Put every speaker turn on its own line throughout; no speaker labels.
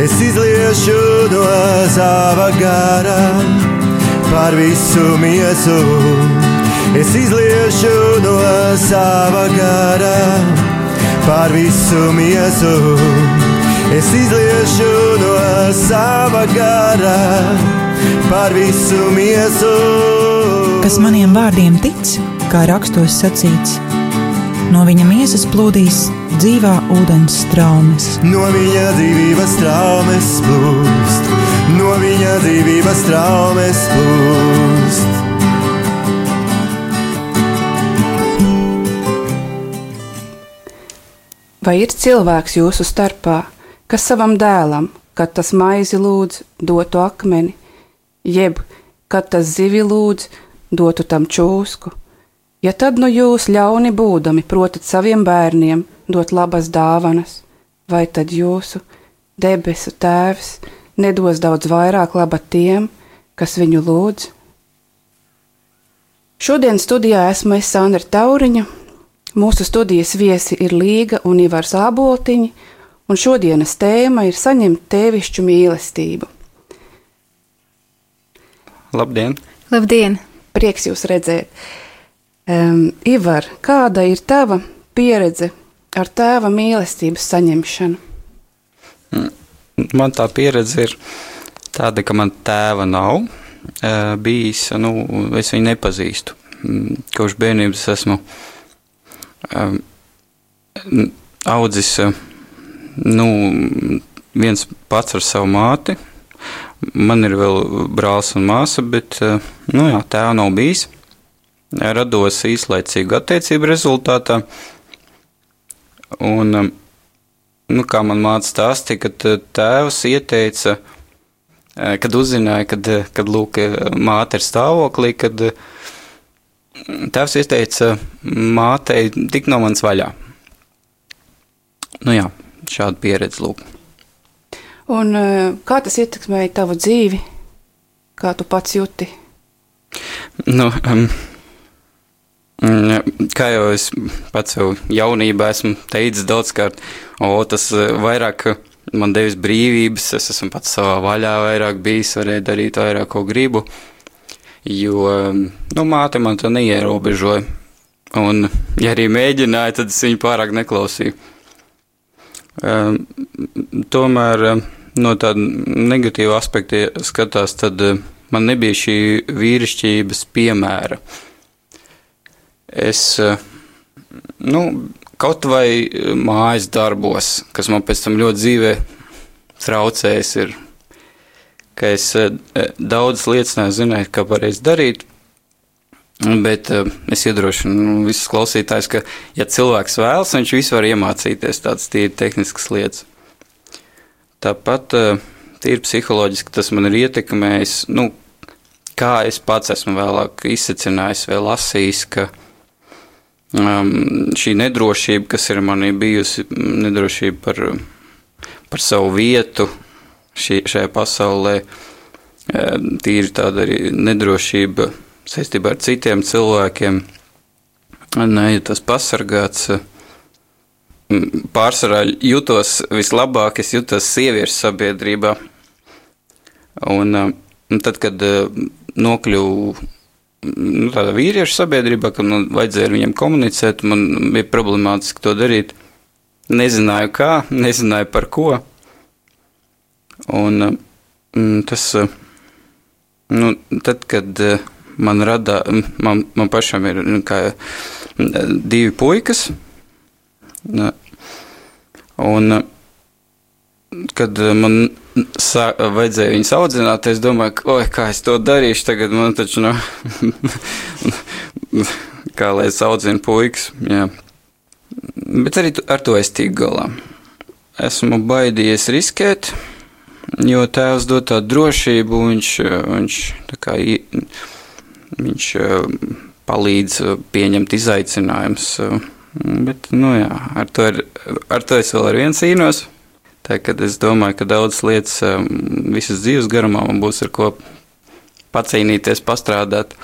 Es izliešu no sava gara par visu miesu. Es izliešu no sava gara par visu miesu. Es izliešu no sava gara par visu miesu.
Kas maniem vārdiem tic, kā rakstos sacīts, no viņa miesas plūdīs dzīvā ūdens straumes.
No viņa dzīvības straumes plūst, no viņa dzīvības straumes plūst.
Vai ir cilvēks jūsu starpā, kas savam dēlam, kad tas maizi lūdz, dotu akmeni, jeb, kad tas zivi lūdz, dotu tam čūsku? Ja tad nu jūs ļauni būdami protat saviem bērniem dot labas dāvanas, vai tad jūsu debesu tēvs nedos daudz vairāk laba tiem, kas viņu lūdz? Šodien studijā esmu es Sandra Tauriņa, mūsu studijas viesi ir Līga un Ivars Āboltiņi, un šodienas tēma ir saņemt tēvišķu mīlestību.
Labdien!
Labdien!
Prieks jūs redzēt. Ivar, kāda ir tava pieredze ar tēva mīlestības saņemšanu?
Man tā pieredze ir tāda, ka man tēva nav bijis, es viņu nepazīstu. Kopš bērnības esmu audzis, viens pats ar savu māti. Man ir vēl brālis un māsa, bet, tēva nav bijis. Rados īslaicīgu attiecību rezultātā. Un, kā man māca stāstīja, kad tēvs ieteica, kad uzzināja, kad lūk, māte ir stāvoklī, kad tēvs ieteica mātei tikt no manis vaļā. Šāda pieredze lūk.
Un kā tas ietekmēja tavu dzīvi? Kā tu pats jūti?
Kā jau es pats jau jaunībā esmu teicis daudzkārt, tas vairāk man devis brīvības, es esmu pats savā vaļā vairāk bijis, varēju darīt vairāk, ko gribu, jo, māte man to neierobežoja, un, ja arī mēģināja, tad es viņu pārāk neklausīju. Tomēr, no tāda negatīva aspekta skatās, tad man nebija šī vīrišķības piemēra. Es, kaut vai mājas darbos, kas man pēc tam ļoti dzīvē traucējis ir, ka es daudzas lietas nezināju, kā pareizi darīt, bet es iedrošinu visus klausītājus, ka, ja cilvēks vēlas, viņš visu var iemācīties tādas tīri tehniskas lietas. Tāpat tīri psiholoģiski tas man ir ietekmējis, kā es pats esmu vēlāk izsecinājis vai lasījis, ka šī nedrošība, kas ir manī bijusi, nedrošība par savu vietu šajā pasaulē, tīri tāda arī nedrošība saistībā ar citiem cilvēkiem, nejūtos pasargāts. Pārsvarā jūtos vislabāk, es jūtos sieviešu sabiedrībā. Un tad, kad nokļuvu tādā vīriešu sabiedrībā, kad man vajadzēja ar viņiem komunicēt, man bija problemātiski to darīt. Nezināju kā, nezināju par ko. Un tas, tad, kad man pašam ir divi puikas, un kad man vajadzēja viņus audzināt, es domāju, ka, kā es to darīšu tagad, man taču kā lai es audzinu puikas, jā. Bet arī ar to es tiku galā. Esmu baidījies riskēt, jo tēvs dod tādu drošību, viņš palīdz pieņemt izaicinājumus, bet, ar to es vēl ar viens cīnos. Tā, kad es domāju, ka daudzas lietas visas dzīves garumā man būs ar ko pacīnīties, pastrādāt.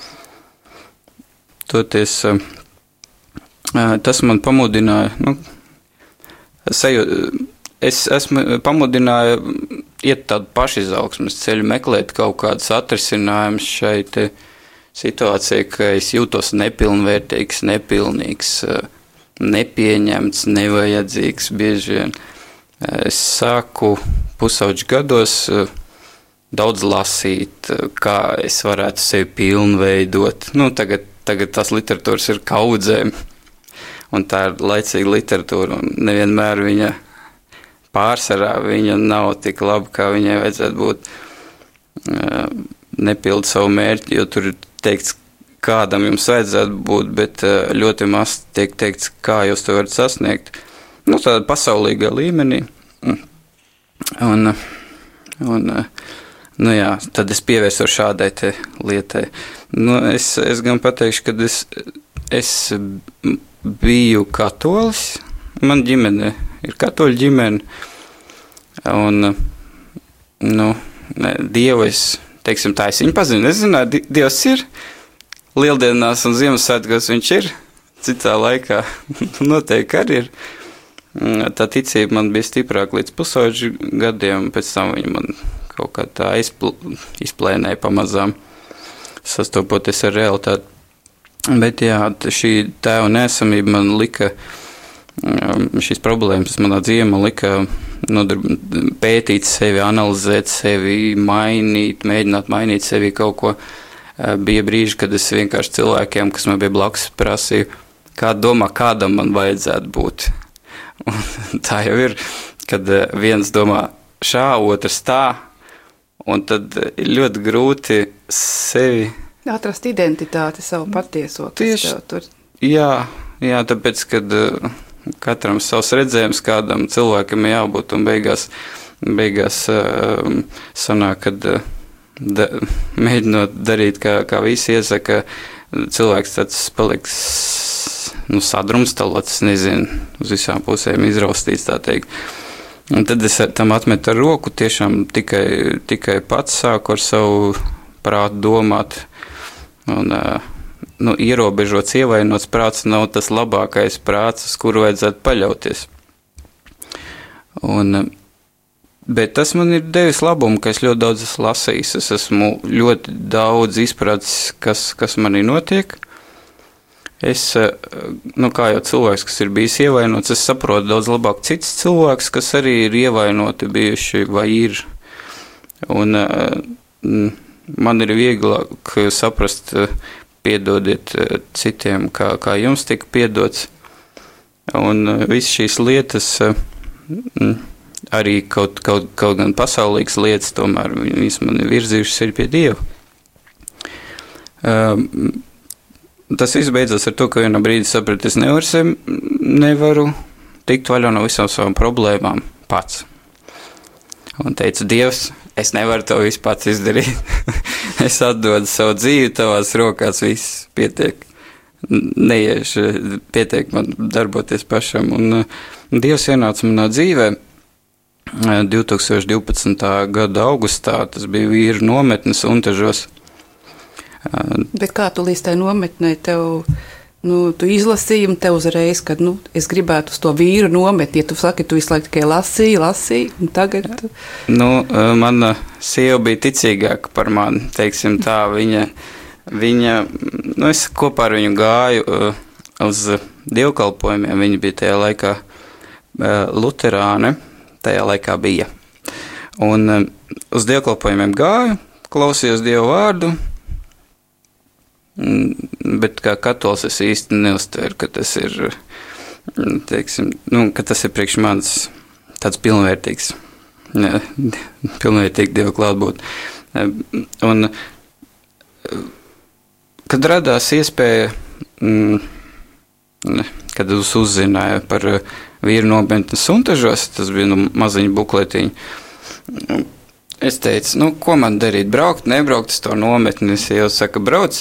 Toties, tas man pamudināja, es esmu pamudināja iet tādu pašizaugsmes ceļu, meklēt kaut kādus atrisinājumus šai te situācijai, ka es jūtos nepilnvērtīgs, nepilnīgs, nepieņemts, nevajadzīgs bieži vien. Es sāku pusauģu gados daudz lasīt, kā es varētu sevi pilnveidot. Tagad tās literatūras ir kaudzēm, un tā ir laicīga literatūra, un nevienmēr viņa pārsvarā viņa nav tik laba, kā viņai vajadzētu būt. Nepilda savu mērķi, jo tur ir teikts, kādam jums vajadzētu būt, bet ļoti maz tiek teikts, kā jūs to varat sasniegt. Tādā pasaulīgā līmenī. Un jā, tad es pievērsos šādai te lietai. Es gan pateikšu, ka es biju katolis. Man ģimene ir katoļu ģimene. Un, Dievu es, teiksim tā, es viņu pazinu. Es zināju, Dievs ir. Lieldienās un Ziemassvētkos viņš ir. Citā laikā noteikti arī ir. Tā ticība man bija stiprāka līdz pusauģu gadiem, pēc tam viņa man kaut kā tā izplēnēja pamazām, sastopoties ar realitāti. Bet jā, šī tēva neesamība man lika, šīs problēmas manā dzīvē man lika pētīt sevi, analizēt sevi, mēģināt mainīt sevi kaut ko. Bija brīži, kad es vienkārši cilvēkiem, kas man bija blakus, prasīju, kā domā, kādam man vajadzētu būt. Un tā jau ir, kad viens domā šā, otrs tā, un tad ir ļoti grūti sevi
atrast identitāti, savu patieso, kas tev tur. Jā,
tāpēc, kad katram savs redzējums, kādam cilvēkam jābūt, un beigās sanāk, kad mēģinot darīt, kā visi iesaka, cilvēks tāds paliks sadrumstalots, nezinu, uz visām pusēm izraustīts, tā teikt. Un tad es tam atmetu ar roku, tiešām tikai pats sāku ar savu prātu domāt. Un, ierobežots, ievainots prāts nav tas labākais prāts, uz kuru vajadzētu paļauties. Bet tas man ir devis labumu, ka es ļoti daudz esmu lasījis. Es esmu ļoti daudz izpratis, kas manī notiek. Es, kā jau cilvēks, kas ir bijis ievainots, es saprotu daudz labāk cits cilvēks, kas arī ir ievainoti bijuši vai ir. Un man ir vieglāk saprast, piedodiet citiem, kā jums tika piedots. Un viss šīs lietas, arī kaut gan pasaulīgas lietas, tomēr viņas man ir virzījušas arī pie Dieva. Tas viss beidzās ar to, ka vienā brīdī sapratu, es nevaru tikt vaļā no visām savām problēmām pats. Un teicu, Dievs, es nevaru to visu pats izdarīt. Es atdodu savu dzīvi tavās rokās, viss pietiek. Neiešu, pietiek man darboties pašam. Un Dievs ienāca manā dzīvē 2012. gada augustā, tas bija vīru nometnes Untažos.
Bet kā tu līdz tai nometnē tev, tu izlasīji un tev uzreiz, kad, es gribētu uz to vīru nometni, ja tu saki, tu visu laiku tikai lasīji, un tagad?
Mana sieva bija ticīgāka par mani, teiksim tā, viņa, es kopā ar viņu gāju uz dievkalpojumiem, viņa bija tajā laikā luterāne, tajā laikā bija. Un uz dievkalpojumiem gāju, klausījos Dievu vārdu, bet kā katolis es īsti neuztveru, ka tas ir, teiksim, ka tas ir priekš manis tāds pilnvērtīgs Dievu klātbūt. Un kad radās iespēja, kad es uzzināju par vīru nometnes Untažos, tas bija maziņa bukletiņa, es teicu, ko man darīt, braukt, nebraukt uz to nometni, es jau saka, brauc,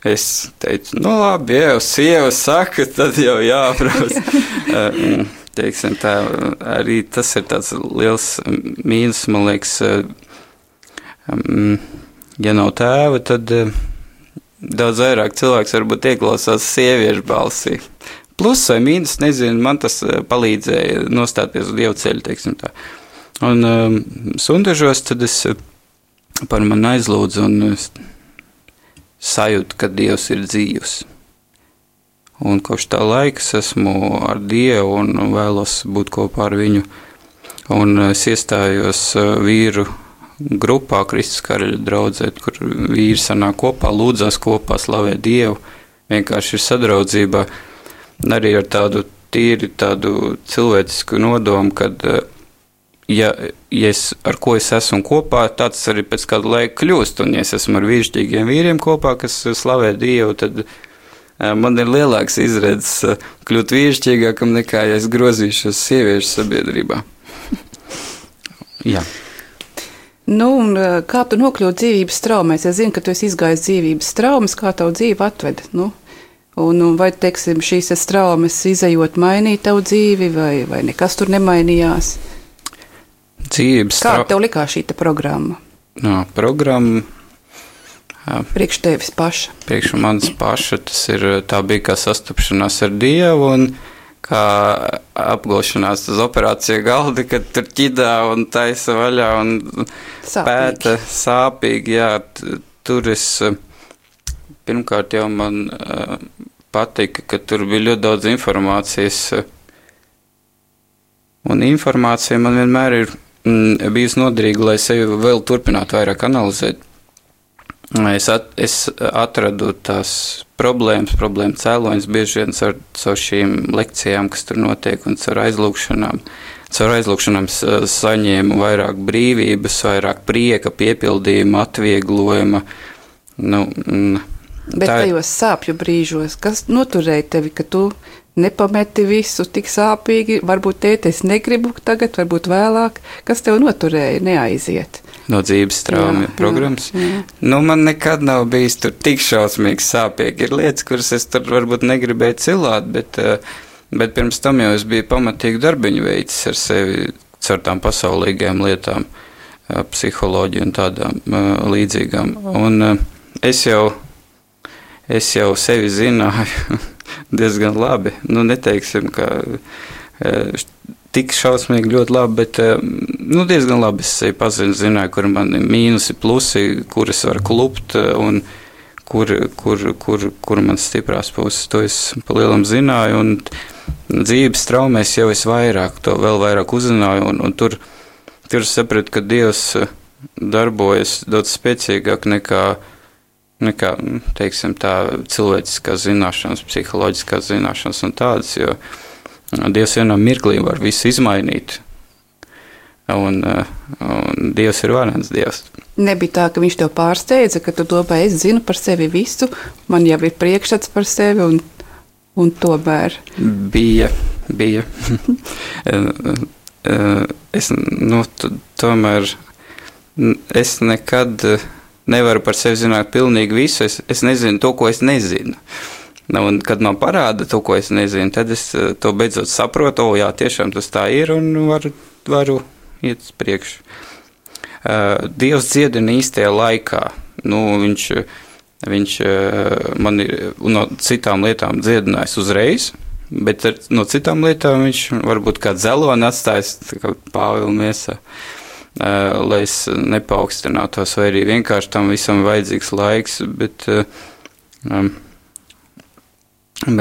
es teicu, labi, ja jau sieva saka, tad jau jābrauc. Teiksim tā, arī tas ir tāds liels mīnus, man liekas, ja nav tēva, tad daudz vairāk cilvēks varbūt ieklausās sieviešu balsī. Plus vai mīnus, nezinu, man tas palīdzēja nostāties uz Dievu ceļu, teiksim tā. Un sundažos tad es par mani aizlūdzu un sajūtu, ka Dievs ir dzīvs. Un kopš tā laika es esmu ar Dievu un vēlos būt kopā ar viņu. Un es iestājos vīru grupā Kristus Karaļa draudzē, kur vīri sanāk kopā, lūdzās kopā, slavē Dievu, vienkārši ir sadraudzībā. Arī ar tādu tīri tādu cilvēcisku nodomu, kad ja ar ko es esmu kopā, tāds arī pēc kāda laika kļūst. Un ja es esmu ar vīrišķīgiem vīriem kopā, kas slavē Dievu, tad man ir lielāks izredzes kļūt vīrišķīgākam nekā, ja es grozīšos sieviešu sabiedrībā. Jā.
Nu, un kā tu nokļūt dzīvības traumēs? Es zinu, ka tu esi izgājis dzīvības traumas, kā tavu dzīvi atved, nu? Un vai, teiksim, šīs traumas izejot mainīt tavu dzīvi, vai nekas tur nemainījās? Kā tev likās šī programma?
No, programma
priekš tevis paša.
Priekš manis paša, tā bija kā sastapšanās ar Dievu un kā apgulšanās uz operāciju galda, kad tur ķidā un taisa vaļā un pēta sāpīgi. Jā, tur es pirmkārt jau man patika, ka tur bija ļoti daudz informācijas. Un informācija man vienmēr ir bijusi noderīga, lai sevi vēl turpinātu vairāk analizēt. Es atradu tās problēmu cēloņus bieži vien caur šīm lekcijām, kas tur notiek, un caur aizlūgšanām. Caur aizlūgšanām saņēmu vairāk brīvības, vairāk prieka, piepildījuma, atvieglojuma.
Bet tajos sāpju brīžos, kas noturēja tevi, ka tu nepameti visu tik sāpīgi, varbūt tēti, es negribu tagad, varbūt vēlāk, kas tev noturēja neaiziet?
No dzīves traumu programmas. Jā. Nu, man nekad nav bijis tur tik šausmīgi sāpīgi. Ir lietas, kuras es tur varbūt negribēju cilāt, bet pirms tam jau es biju pamatīgi darbiņu veicis ar sevi caur tām pasaulīgajām lietām, psiholoģiju un tādām līdzīgām. Un es jau sevi zināju diezgan labi. Nu, neteiksim, ka tik šausmīgi ļoti labi, bet diezgan labi es sevi zināju, kur man ir mīnusi, plusi, kur es varu klupt un kur man stiprās puses. To es pa lielam zināju, un dzīves traumēs jau es vēl vairāk uzzināju, un tur sapratu, ka Dievs darbojas daudz spēcīgāk nekā, teiksim, tā cilvēciskās zināšanas, psiholoģiskās zināšanas un tādas, jo Dievs vienā mirklī var visu izmainīt, un Dievs ir varens Dievs.
Nebija tā, ka viņš tev pārsteidza, ka tu domāji, es zinu par sevi visu, man jau ir priekšstats par sevi, un tomēr.
Bija. Tomēr es nekad nevaru par sevi zināt pilnīgi visu, es nezinu to, ko es nezinu. Un, kad man parāda to, ko es nezinu, tad es to beidzot saprotu, jā, tiešām tas tā ir, un varu iet uz priekšu. Dievs dziedina īstajā laikā. Viņš man ir no citām lietām dziedinājis uzreiz, bet no citām lietām viņš varbūt kā dzeloni atstājis, tā kā Pāvila miesā, lai es nepaukstinātos, vai arī vienkārši tam visam vajadzīgs laiks, bet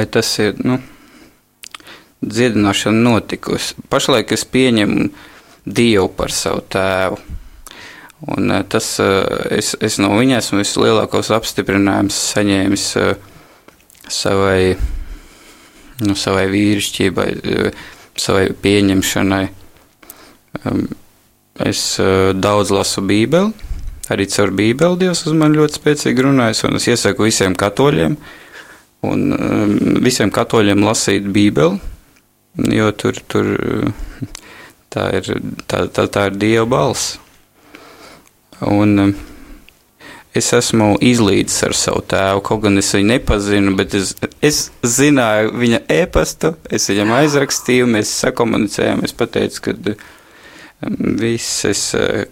tas ir, dziedināšana notikusi. Pašlaik es pieņemu Dievu par savu tēvu, un tas, es no viņa esmu vislielākos apstiprinājumus saņēmis savai vīrišķībai, savai pieņemšanai. Es daudz lasu Bībeli, arī caur Bībeli Dievs uz mani ļoti spēcīgi runājas, un es iesaku visiem katoļiem lasīt Bībeli, jo tur tā ir Dieva balss. Un es esmu izlīdzis ar savu tēvu, kaut gan es viņu nepazinu, bet es zināju viņa e-pastu, es viņam aizrakstīju, mēs sakomunicējām, es pateicu, ka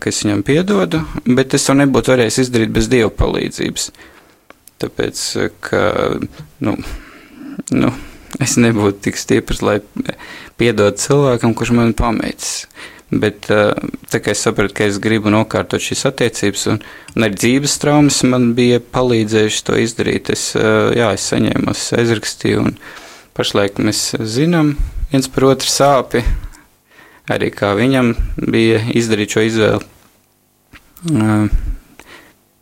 es viņam piedodu, bet es to nebūtu varējis izdarīt bez Dieva palīdzības. Tāpēc, ka, es nebūtu tik stiprs, lai piedod cilvēkam, kurš man pameicis. Bet tā kā es sapratu, ka es gribu nokārtot šīs attiecības, un arī dzīves traumas man bija palīdzējuši to izdarīt. Es saņēmu, aizrakstīju, un pašlaik mēs zinām viens par otru sāpi, arī kā viņam bija izdarīt šo izvēli.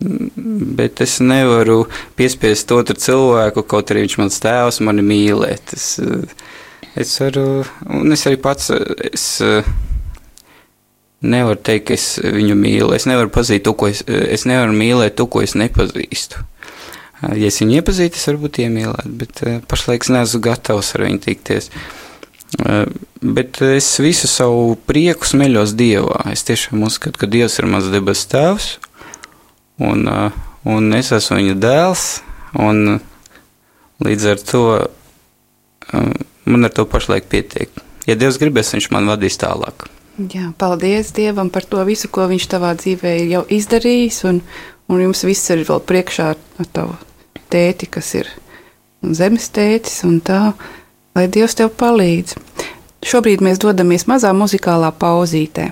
Bet es nevaru piespiest otru cilvēku, kaut arī viņš mans tēvs, mani mīlēt. Es varu, un es arī pats, nevaru teikt, ka es viņu mīlu. Es nevaru pazīt to, es nevaru mīlēt to, ko es nepazīstu. Ja es viņu iepazītu, es varbūt iemīlētu, bet pašlaik es neesmu gatavs ar viņu tikties. Bet es visu savu prieku smeļos Dievā. Es tiešām uzskatu, ka Dievs ir mans debes tēvs, un es esmu viņa dēls, un līdz ar to man ar to pašlaik pietiek. Ja Dievs gribēs, viņš man vadīs tālāk.
Jā, paldies Dievam par to visu, ko viņš tavā dzīvē jau izdarījis, un jums viss ir vēl priekšā ar tavu tēti, kas ir zemes tētis, un tā, lai Dievs tev palīdz. Šobrīd mēs dodamies mazā muzikālā pauzītē.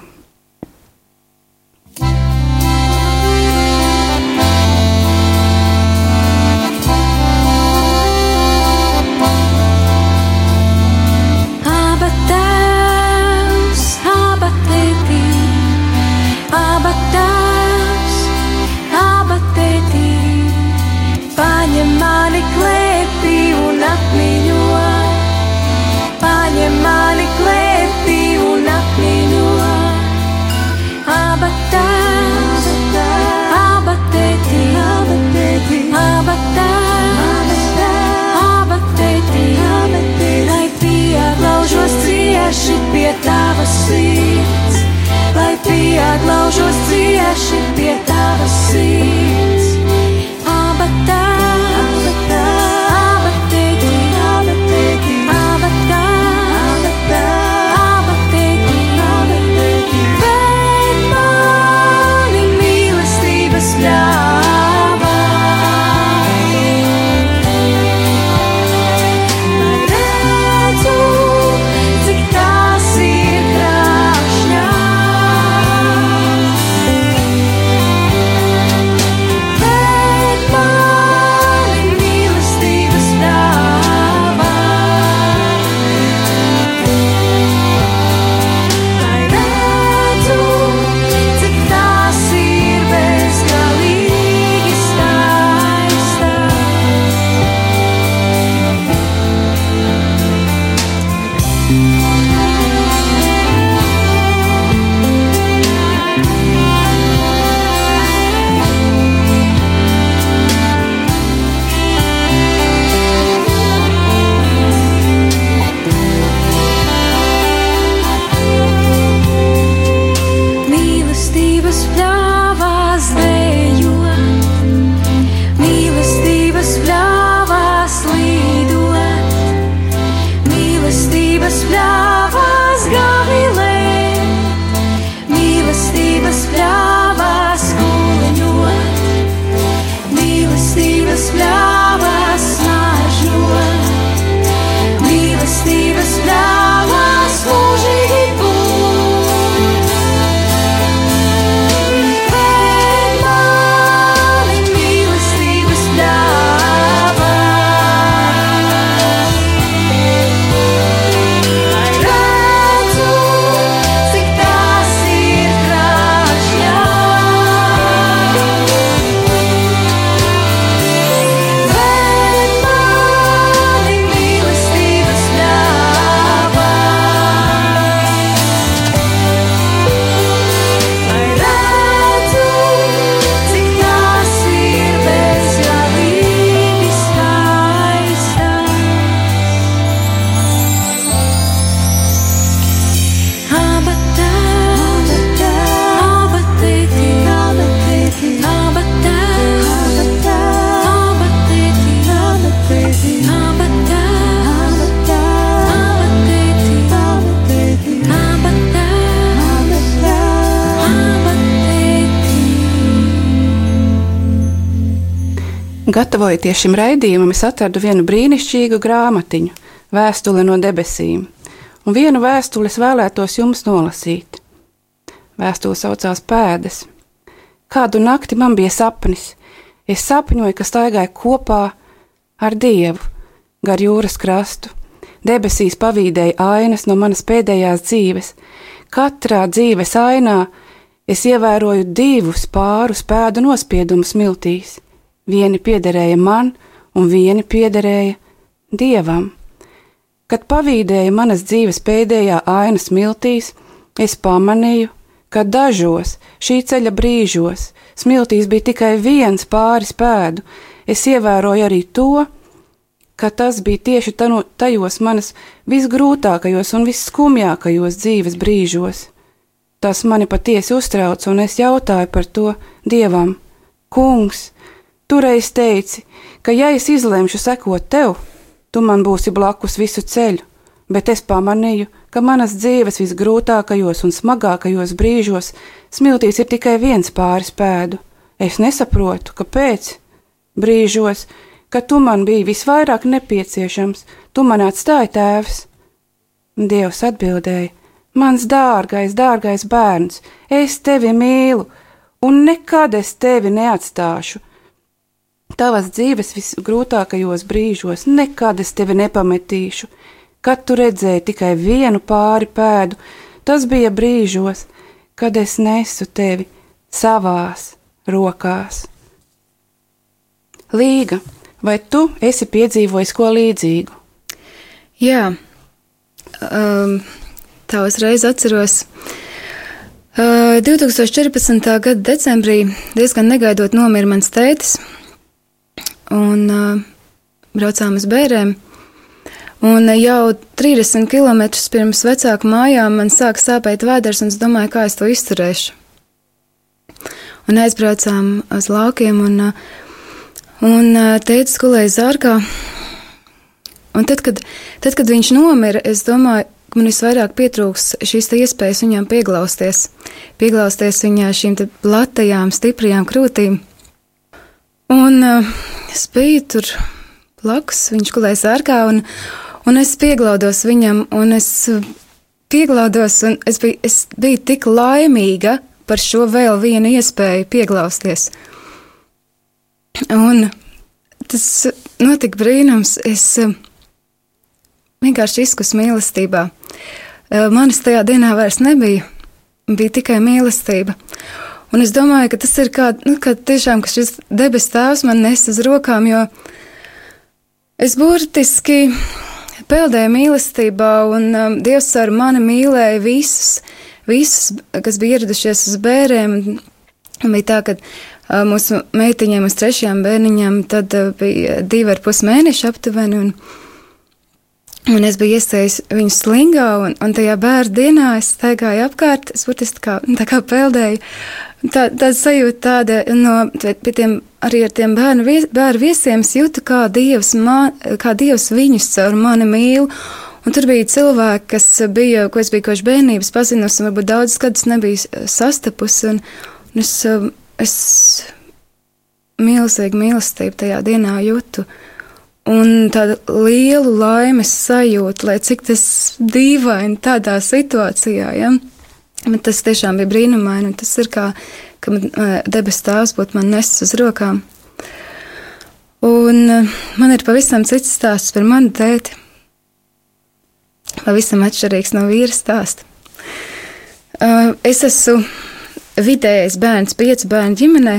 Pie tavas sirds, lai pieglaužos cieši pie tavas sirds. Aba tēti, aba tēti, aba tēti, bet mani mīlestības ļāvā.
Gatavojoties šim raidījumam, es atradu vienu brīnišķīgu grāmatiņu, Vēstule no debesīm, un vienu vēstuli es vēlētos jums nolasīt. Vēstule saucās Pēdas. Kādu nakti man bija sapnis. Es sapņoju, ka staigāju kopā ar Dievu gar jūras krastu. Debesīs pavīdēja ainas no manas pēdējās dzīves. Katrā dzīves ainā es ievēroju 2 pārus pēdu nospiedumus smiltīs. Vieni piederēja man, un vieni piederēja Dievam. Kad pavīdēja manas dzīves pēdējā ainas smiltīs, es pamanīju, ka dažos šī ceļa brīžos smiltīs bija tikai 1 pāris pēdu. Es ievēroju arī to, ka tas bija tieši tajos manas visgrūtākajos un visskumjākajos dzīves brīžos. Tas mani patiesi uztrauc, un es jautāju par to Dievam. Kungs, tu reiz teici, ka ja es izlemšu sekot tev, tu man būsi blakus visu ceļu, bet es pamanīju, ka manas dzīves visgrūtākajos un smagākajos brīžos smiltīs ir tikai 1 pāris pēdu. Es nesaprotu, kāpēc. Brīžos, kad tu man biji visvairāk nepieciešams, tu man atstāji, Tēvs. Dievs atbildēja: Mans dārgais, dārgais bērns, es tevi mīlu, un nekad es tevi neatstāšu. Tavas dzīves visgrūtākajos brīžos nekad es tevi nepametīšu. Kad tu redzēji tikai 1 pāri pēdu, tas bija brīžos, kad es nesu tevi savās rokās. Līga, vai tu esi piedzīvojis ko līdzīgu?
Jā, tā uzreiz atceros. 2014. gada decembrī diezgan negaidot nomira mans tētis, un braucām uz Bērēm. Un jau 30 km pirms vecāku mājām man sāka sāpēt vēders, un es domāju, kā es to izturēšu. Un aizbraucām uz laukiem, un tētis gulēja zārkā. Un tad, kad viņš nomira, es domāju, ka man visvairāk pietrūks šīs iespējas viņam pieglausties viņā šīm te platajām, stiprajām krūtīm. Un es biju tur blakus, viņš gulēja zārkā, un es pieglaudos viņam, un es biju tik laimīga par šo vēl vienu iespēju pieglausties. Un tas notika brīnums, es vienkārši izkus mīlestībā. Manis tajā dienā vairs nebija, bija tikai mīlestība. Un es domāju, ka tas ir kā tiešām, ka šis debes tēvs man nes uz rokām, jo es burtiski peldēju mīlestībā, un Dievs ar mani mīlēja visus, kas bija ieradušies uz Bērēm. Un bija tā, ka mūsu meitiņiem uz 3. bērniņam tad bija 2,5 mēneši aptuveni, un es biju iestājis viņu slingā, un tajā bērnu dienā es staigāju apkārt, es burtiski tā kā peldēju. Tāda sajūta arī ar tiem bērnu viesiem, es jūtu, kā Dievs viņus caur mani mīl. Un tur bija cilvēki, ko es biju koši bērnības pazinusi, un varbūt daudz gadus nebiju sastapusi, un es milzīgu mīlestību tajā dienā jūtu. Un tādu lielu laimes sajūtu, lai cik tas dīvaini tādā situācijā, ja? Bet tas tiešām bija brīnumaini, un tas ir kā debes tēvs būtu man nesis uz rokām. Un man ir pavisam cits stāsts par manu tēti. Pavisam atšķirīgs no vīra stāsta. Es esmu vidējais bērns 5 bērnu ģimenē,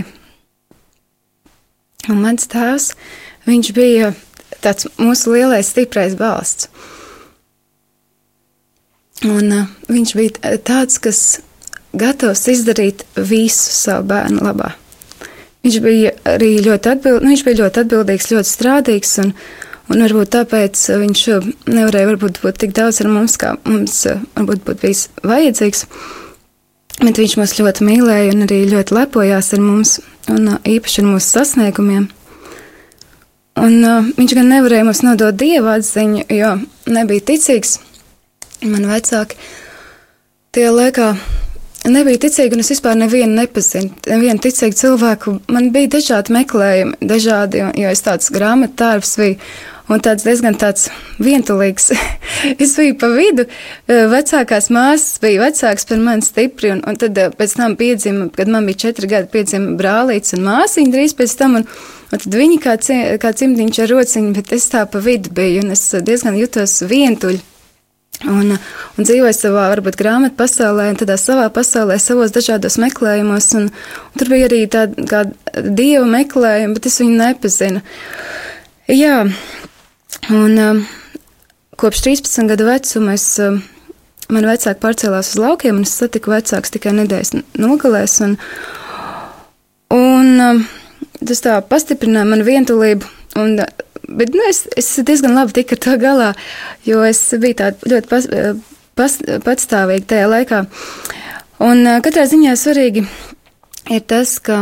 un mans tēvs, viņš bija tāds mūsu lielais stiprais balsts. Un viņš bija tāds, kas gatavs izdarīt visu savu bērnu labā. Viņš bija arī ļoti atbildīgs, ļoti strādīgs, un varbūt tāpēc viņš nevarēja būt tik daudz ar mums, kā mums varbūt būtu bijis vajadzīgs. Bet viņš mūs ļoti mīlēja un arī ļoti lepojās ar mums, un īpaši ar mūsu sasniegumiem. Un viņš gan nevarēja mums nodot Dieva atziņu, jo nebija ticīgs. Man vecāki tie laikā nebija ticīgi, un es vispār nevienu nepazinu, nevienu ticīgu cilvēku. Man bija dažādi meklējumi, jo es tāds grāmatā tārps biju, un diezgan tāds vientulīgs. Es biju pa vidu, vecākās māsas bija vecāks par mani stipri, un tad pēc tam piedzima, kad man bija 4 gadi, piedzima brālīts un māsiņa drīz pēc tam, un tad viņi kā cimdiņš ar rociņu, bet es tā pa vidu biju, un es diezgan jutos vientuļi. Un dzīvoju savā, varbūt, grāmatu pasaulē, un tādā savā pasaulē, savos dažādos meklējumos, un tur bija arī tāda kā dieva meklējuma, bet es viņu nepazinu. Jā, un kopš 13 gadu vecuma man vecāki pārcēlās uz laukiem, un es satiku vecāks tikai nedēļas nogalēs, un tas tā pastiprināja manu vientulību, bet es diezgan labi tiku ar to galā, jo es biju tāda ļoti patstāvīga tajā laikā. Un katrā ziņā svarīgi ir tas, ka,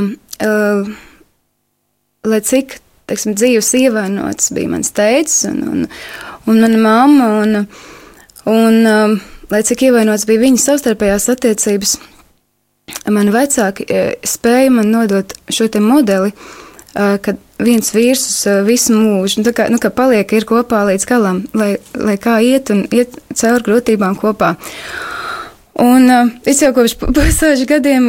lai cik, teiksim, dzīves ievainots bija mans tētis un mana mamma, un lai cik ievainots bija viņa savstarpējās attiecības, mani vecāki spēja man nodot šo te modeli, kad viens vīrs uz visu mūžu, tā kā, ka paliek ir kopā līdz galam, lai kā iet un iet caur grūtībām kopā. Un es jau kopš pusauģu gadiem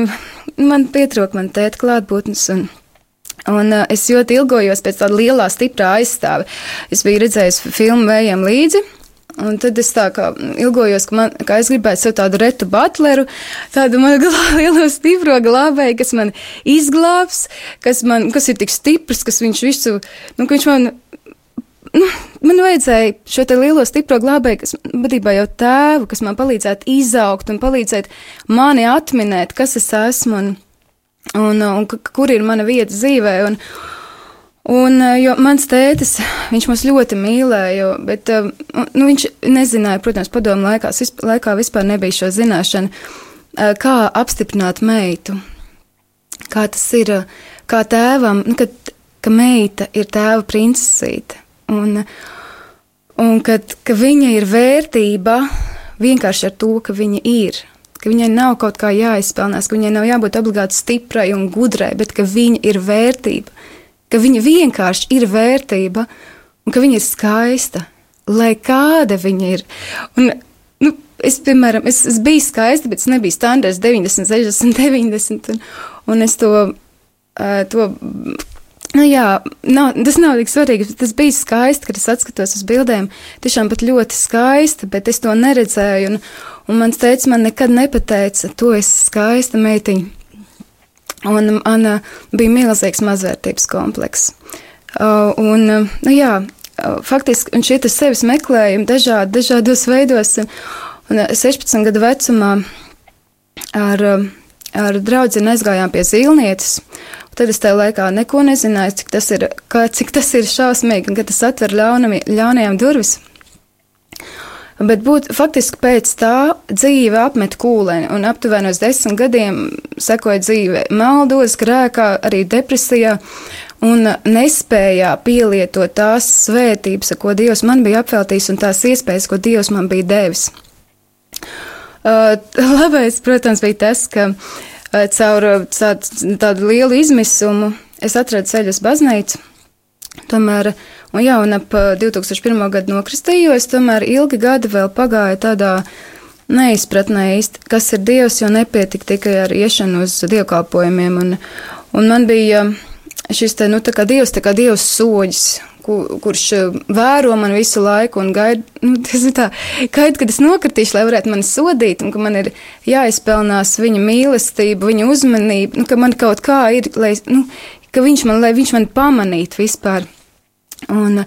man pietrūk man tēta klātbūtnes, un es ļoti ilgojos pēc tāda lielā, stiprā aizstāve. Es biju redzējis filmu Vējiem līdzi, un tad es tā kā ilgojos, ka es gribētu sev tādu Retu Butleru, tādu manu lielo stipro glābēju, kas man izglābs, kas ir tik stiprs, kas viņš visu, ka viņš man vajadzēja šo te lielo stipro glābēju, kas būtībā jau tēvu, kas man palīdzētu izaugt un palīdzēt mani atminēt, kas es esmu un kur ir mana vieta dzīvē, jo mans tētis, viņš mūs ļoti mīlēja, bet viņš nezināja, protams, padomu laikā vispār nebija šo zināšanu, kā apstiprināt meitu, kā tas ir, kā tēvam, ka meita ir tēva princesīte, un ka viņa ir vērtība vienkārši ar to, ka viņa ir, ka viņai nav kaut kā jāizpelnās, ka viņai nav jābūt obligāti stiprai un gudrai, bet ka viņa ir vērtība, ka viņa vienkārši ir vērtība un ka viņa ir skaista, lai kāda viņa ir. Un, es, piemēram, es biju skaista, bet es nebiju standarts 90, 60, 90, un es to tas nav tik svarīgi, tas bija skaisti, kad es atskatos uz bildēm, tiešām pat ļoti skaisti, bet es to neredzēju, un mans tētis man nekad nepateica, tu esi skaista meitiņa. Un man bija milzīgs mazvērtības komplekss. Faktiski, un šie sevis meklējumi dažādos veidos, un 16 gadu vecumā ar draudzeni aizgājām pie Zīlnietes, un tad es tajā laikā neko nezināju, cik tas ir šausmīgi, un ka tas atver ļaunajām durvis. Bet faktiski pēc tā dzīve apmet kūleni, un aptuveni uz 10 gadiem sekoja dzīve maldos, grēkā, arī depresijā, un nespējā pielietot tās svētības, ko Dievs man bija apveltījis, un tās iespējas, ko Dievs man bija devis. Labais, protams, bija tas, ka caur tādu lielu izmisumu es atradu ceļu uz baznīcu. Tomēr, un ap 2001. gadu nokristījos, tomēr ilgi gadi vēl pagāja tādā neizpratnē īsti, kas ir Dievs, jo nepietika tikai ar iešanu uz dievkalpojumiem, un man bija šis tā kā Dievs soģis, kurš vēro man visu laiku un gaida, kad es nokritīšu, lai varētu mani sodīt, un ka man ir jāizpelnās viņa mīlestība, viņa uzmanība, ka man kaut kā ir, lai viņš man pamanītu vispār. Un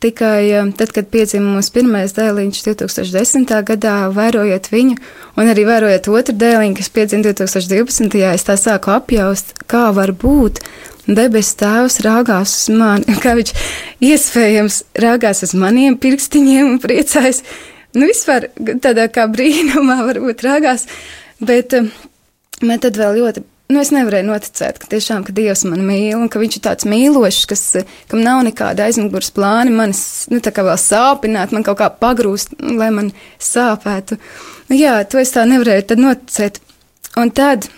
tikai tad, kad piedzima mūsu pirmais dēliņš 2010. gadā, vērojot viņu, un arī vērojot otru dēliņu, kas piedzima 2012. es tā sāku apjaust, kā var būt debes tēvs rāgās uz mani, kā viņš iespējams rāgās uz maniem pirkstiņiem un priecājas. Vispār tādā kā brīnumā varbūt rāgās, bet man tad vēl ļoti es nevarēju noticēt, ka Dievs man mīl, un ka viņš ir tāds mīlošs, kam nav nekāda aizmugures plāni, manis, tā kā vēl sāpināt, man kaut kā pagrūst, lai man sāpētu. To es tā nevarēju tad noticēt. Un tad,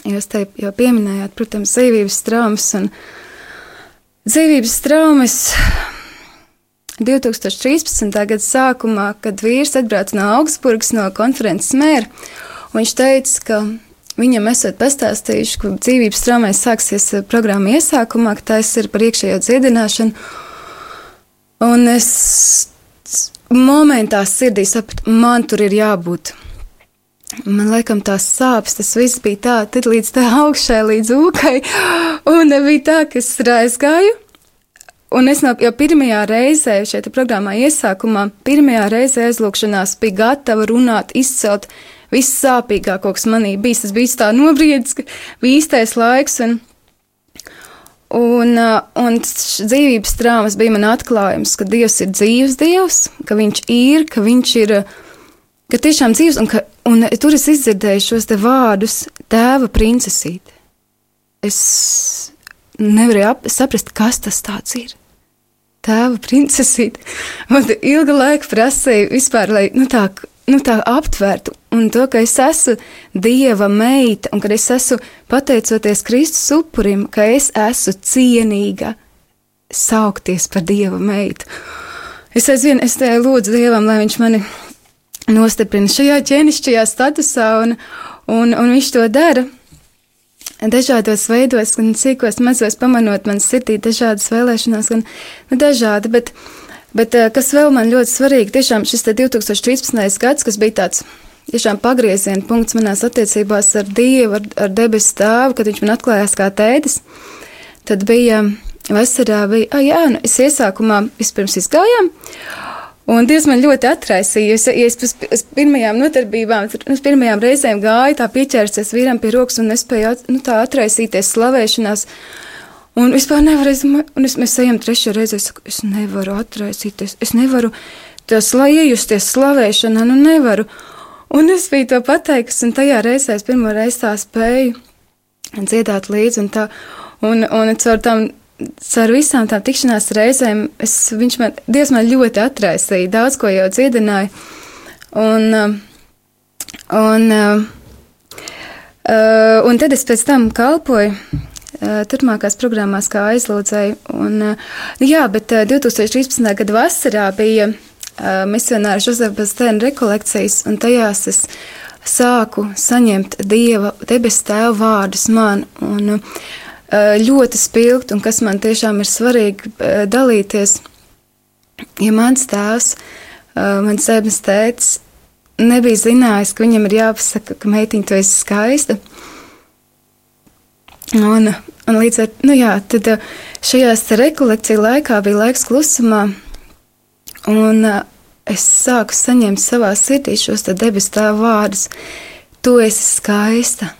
jūs te jau pieminējāt, protams, dzīvības traumas, un dzīvības traumas 2013. Gada sākumā, kad vīrs atbrauca no Augsburgas, no konferences mēra, un viņš teica, ka viņam esot pastāstījuši, ka dzīvības traumais sāksies programma iesākumā, ka tās ir par iekšējo dziedināšanu. Un es momentā sirdī sapratu, man tur ir jābūt. Man laikam tās sāpes, tas viss bija tā, tad līdz tā augšai, līdz ūkai, un bija tā, ka es aizgāju. Un es jau pirmajā reizē šeit programmā iesākumā, pirmajā reizē aizlūkšanās bija gatava runāt, izcelt viss sāpīgāko, kas manī bijis. Tas bija tā nobriedis, ka bija īstais laiks, un dzīvības traumas bija man atklājums, ka Dievs ir dzīves Dievs, ka viņš ir, ka tiešām dzīves, un tur es izdzirdēju šos te vārdus tēva princesīte. Es nevarēju saprast, kas tas tāds ir. Tēva princesīte. Man ilga laika prasīja vispār, lai tā aptvērtu. Un to, ka es esmu Dieva meita, un kad es esmu pateicoties Kristus upurim, ka es esmu cienīga saukties par Dieva meitu. Es lūdzu Dievam, lai viņš mani nostiprina šajā ķēnišķajā statusā, un viņš to dara. Dažādos veidos, gan cīkos, mazos pamanot man sirdī dažādas vēlēšanās, gan dažādi, bet kas vēl man ļoti svarīgi, tiešām šis 2013. gads, kas bija tāds tiešām pagrieziena punkts manās attiecībās ar Dievu, ar debesu tēvu, kad viņš man atklājās kā tētis, tad bija vasarā, es iesākumā vispirms izgājām, un Dievs man ļoti atraisīja, ja es pēc pirmajām nodarbībām, pirmajām reizēm gāju, tā pieķērsies vīram pie rokas un nespēju tā atraisīties slavēšanās, un vispār nevaru, un mēs ejam trešo reizi, es saku, es nevaru atraisīties, es nevaru iejusties slavēšanā, nevaru, un es biju to pateikusi, un tajā reizē es pirmo reizi tā spēju dziedāt līdzi, un caur visām tām tikšanās reizēm Dievs man ļoti atraisīja, daudz ko jau dziedināja, un tad es pēc tam kalpoju turpmākās programmās kā aizlūdzēju, bet 2013. Gada vasarā bija misionāra Žozefa Baztēna rekolekcijas, un tajās es sāku saņemt Dieva debesu tēva vārdus man, un ļoti spilgt, un kas man tiešām ir svarīgi dalīties, ja mans tēvs, mans zēbnes tētis, nebija zinājis, ka viņam ir jāpasaka, ka meitiņa, tu esi skaista. Un līdz ar, tad šajās rekolekciju laikā bija laiks klusumā, un es sāku saņemt savā sirdī šos debesu tēva vārdus. Tu esi skaista,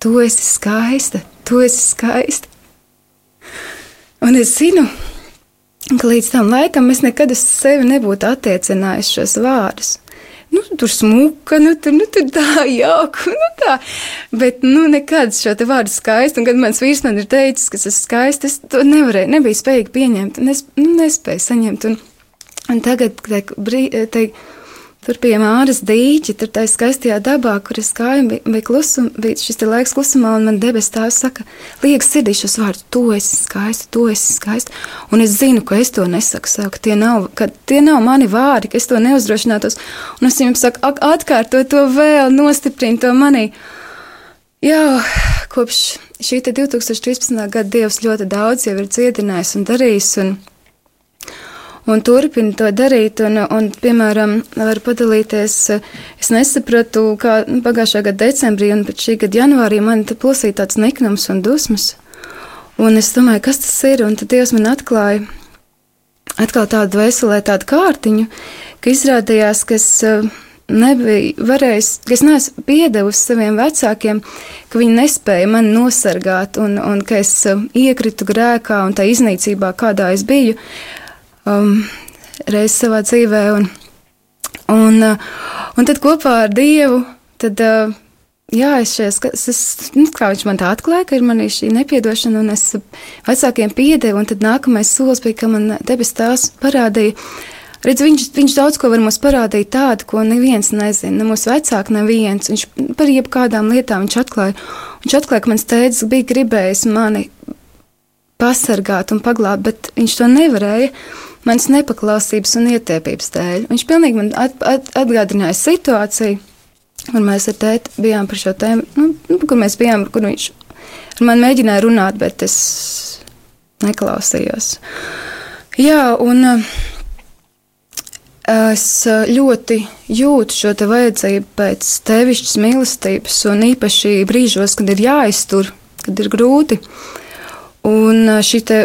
tu esi skaista. Tu esi skaista. Un es zinu, ka līdz tam laikam es nekad uz sevi nebūtu attiecinājis šos vārdus. Tur smuka, tur tā jauka, tā. Bet, nekad šo te vārdu skaisti, un kad mans vīrs man ir teicis, ka es esmu skaista, es to nebiju spējīgi pieņemt, un nespēju saņemt. Un tagad, tur pie Māras dīķi, tur tā skaistajā dabā, kur es gāju, bija šis te laiks klusumā, un man debes tēvs saka, liekas sirdī šos vārdus, tu esi skaista, un es zinu, ka es to nesaku sev, ka tie nav mani vārdi, ka es to neuzdrošinātos, un es viņam saku, atkārto to vēl, nostiprinu to manī. Jā, kopš šī 2013. Gada Dievs ļoti daudz jau ir dziedinājis un darījis, un turpina to darīt, un piemēram, var padalīties, es nesapratu, kā pagājušā gada decembrī un pēc šī gada janvārī man te plosīja tāds niknums un dusmas, un es domāju, kas tas ir, un tad Dievs man atklāja atkal tādu veselē tādu kārtiņu, ka izrādījās, ka es nebiju varējis, ka es neesmu piedevusi saviem vecākiem, ka viņi nespēja mani nosargāt, un ka es iekritu grēkā un tā iznīcībā, kādā es biju, reiz savā dzīvē, un tad kopā ar Dievu, tad, kā viņš man tā atklāja, ka ir manī šī nepiedošana, un es vecākiem piedevu, un tad nākamais solis bija, ka man debes tēvs parādīja, redz, viņš daudz ko var mums parādīt tādu, ko neviens nezina, ne mūsu vecāki neviens, viņš par jebkādām lietām viņš atklāja, ka mans tētis bija gribējis mani pasargāt un paglābt, bet viņš to nevarēja. manas nepaklausības un ietiepības dēļ. Viņš pilnīgi man atgādināja situāciju, kur mēs ar tēti bijām par šo tēmu, kur mēs bijām, kur viņš ar mani mēģināja runāt, bet es neklausījos. Jā, un es ļoti jūtu šo te vajadzību pēc tevišķas mīlestības, un īpaši brīžos, kad ir jāiztur, kad ir grūti. Un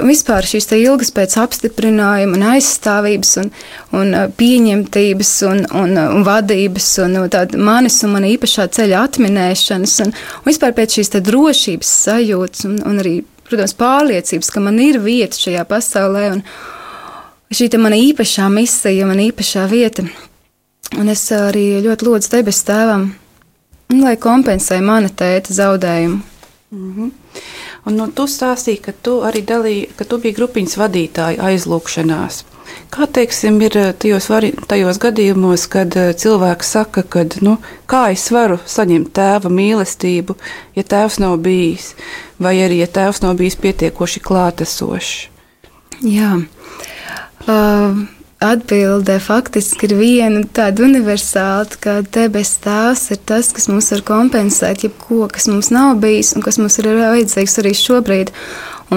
vispār šīs te ilgas pēc apstiprinājuma un aizstāvības un pieņemtības un vadības un tāda manis un mana īpašā ceļa atminēšanas un vispār pēc šīs te drošības sajūtas un arī, protams, pārliecības, ka man ir vieta šajā pasaulē un šī te mana īpašā misija, mana īpašā vieta. Un es arī ļoti lūdzu debesu tēvam, lai kompensē mana tēta zaudējumu.
Mhm. Un tu stāstīji, ka tu arī ka tu biji grupiņas vadītāja aizlūkšanās. Kā, teiksim, ir tajos gadījumos, kad cilvēks saka, ka, kā es varu saņemt tēva mīlestību, ja tēvs nav bijis, vai arī, ja tēvs nav bijis pietiekoši klātesošs? Jā.
Atbilde faktiski ir viena tāda universāla, ka debes tēvs ir tas, kas mums var kompensēt jebko, kas mums nav bijis un kas mums ir vajadzīgs arī šobrīd.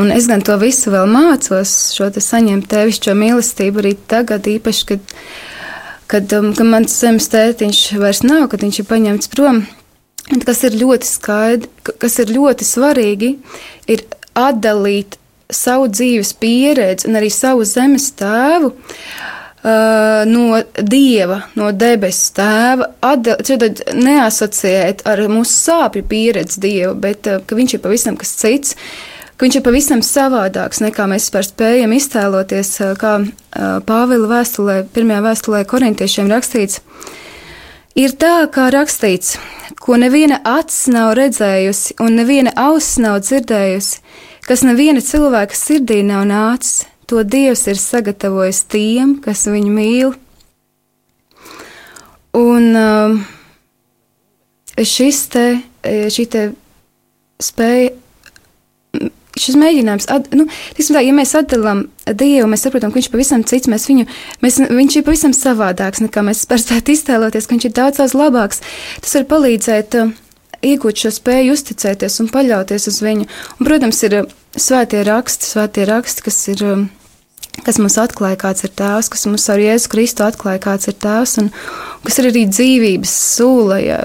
Un es gan to visu vēl mācos, šo te saņemt tevišķo mīlestību arī tagad, īpaši, kad mans zemes tētiņš vairs nav, kad viņš ir paņemts prom. Kas ir ļoti skaidri, kas ir ļoti svarīgi, ir atdalīt savu dzīves pieredzi un arī savu zemes tēvu no Dieva, no debesu tēva, neasociēt ar mūsu sāpju pieredzi Dievu, bet ka viņš ir pavisam kas cits, ka viņš ir pavisam savādāks, nekā mēs vispār spējam iztēloties, kā Pāvila vēstulē, pirmajā vēstulē korintiešiem rakstīts. Ir tā, kā rakstīts, ko neviena acs nav redzējusi un neviena auss nav dzirdējusi, kas neviena cilvēka sirdī nav nācis, to Dievs ir sagatavojis tiem, kas viņu mīl. Un šī te spēja, šis mēģinājums, ja mēs atdalām Dievu, mēs saprotam, ka viņš pavisam cits, viņš ir pavisam savādāks, nekā mēs spētu iztēloties, ka viņš ir daudz labāks. Tas var palīdzēt iegūt šo spēju uzticēties un paļauties uz viņu. Un, protams, ir svētie raksti, kas mums atklāja, kāds ir tēvs, kas mums ar Jēzu Kristu atklāja, kāds ir tēvs, un kas ir arī dzīvības sūla, ja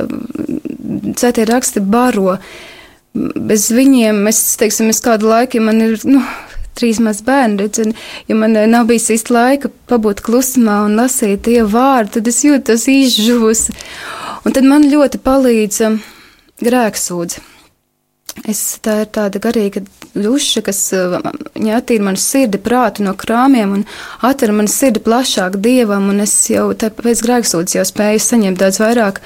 svētie raksti baro. Bez viņiem, es kādu laiku, ja man ir, 3 maz bērni, ja man nav bijis īsti laika pabūt klusumā un lasīt Dievu vārdu, tad es jūtos izžuvusi. Un tad man ļoti palīdz grēksūdze. Tā ir tāda garīga duša, kas attīra manu sirdi, prātu no krāmiem un atver manu sirdi plašāk Dievam, un es jau pēc grēksūdzes jau spēju saņemt daudz vairāk.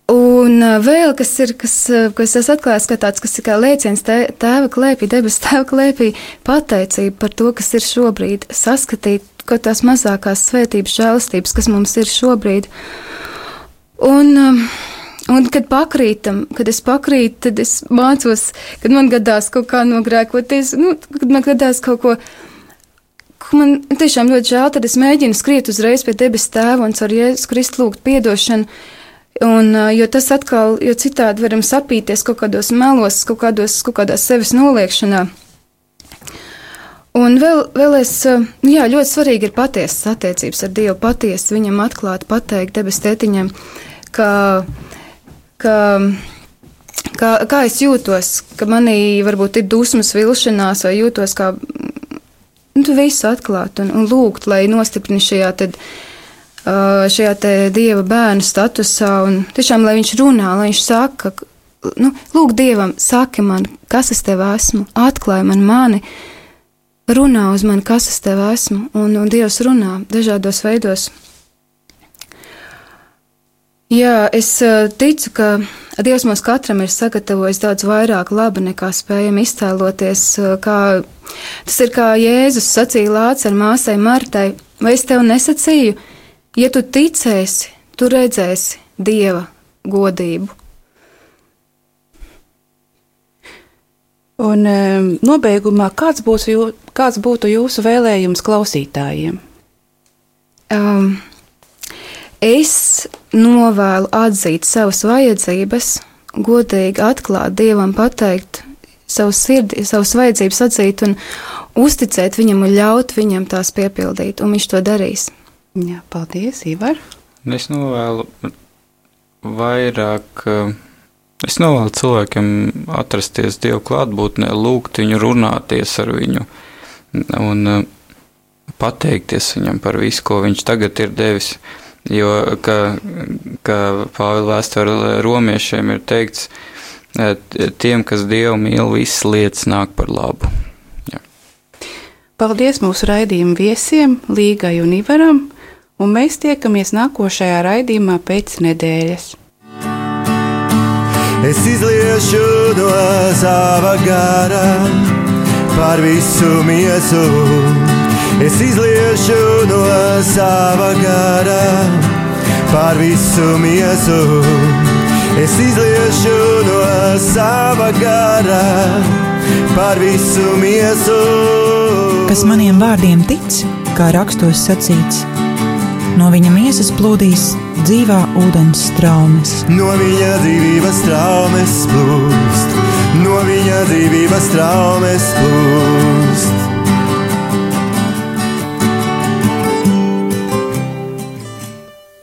Un vēl, kas es atklājos, ka tāds, kas ir kā lēciens tēva klēpī, debesu tēva klēpī, pateicība par to, kas ir šobrīd, saskatīt, ka tās mazākās svētības, žēlastības, kas mums ir šobrīd. Un kad es pakrītu, tad es mācos, kad man gadās kaut kā nogrēkoties, kad man gadās kaut ko man tiešām ļoti žēl, tad es mēģinu skriet uzreiz pie debesu tēva un ar Jēzus Kristu lūgt piedošanu, jo tas atkal, jo citādi varam sapīties kaut kādos melos, kaut kādā sevis noliekšanā. Un vēl ļoti svarīgi ir patiesas attiecības ar Dievu, patiesi viņam atklāt, pateikt debesu tētiņam, kā es jūtos, ka manī varbūt ir dusmas, vilšanās, vai jūtos kā visu atklāt un lūgt, lai nostiprina šajā te Dieva bērnu statusā, un tiešām, lai viņš runā, lai viņš saka, lūk Dievam, saki man, kas es tev esmu, atklāj man mani, runā uz mani, kas es tev esmu, un Dievs runā dažādos veidos. Jā, es ticu, ka Dievs mums katram ir sagatavojis daudz vairāk laba, nekā spējam iztēloties, tas ir kā Jēzus sacīja Lācaru māsai Martai, vai es tev nesacīju, ja tu ticēsi, tu redzēsi Dieva godību.
Un nobeigumā, kāds būtu jūsu vēlējums klausītājiem?
Es novēlu atzīt savas vajadzības, godīgi atklāt Dievam, pateikt savu sirdi, savas vajadzības atzīt un uzticēt viņam un ļaut viņam tās piepildīt, un viņš to darīs.
Jā, paldies, Ivar.
Es novēlu vairāk, es novēlu cilvēkiem atrasties Dievu klātbūtnē, lūgt viņu, runāties ar viņu un pateikties viņam par visu, ko viņš tagad ir devis. Jo, kā Pāvila vēstule romiešiem ir teikts, tiem, kas Dievu mīl, visas lietas nāk par labu. Jā. Paldies mūsu raidījuma viesiem, Līgai un Ivaram, un mēs tiekamies nākošajā raidījumā pēc nedēļas.
Es izliešu no sava gara par visu miesu. Es izliešu no sava gara par visu miesu. Es izliešu no sava gara par visu miesu.
Kas maniem vārdiem tic, kā rakstos sacīts, no viņa miesas plūdīs dzīvā ūdens straumes.
No viņa dzīvības straumes plūst, no viņa dzīvības straumes plūst.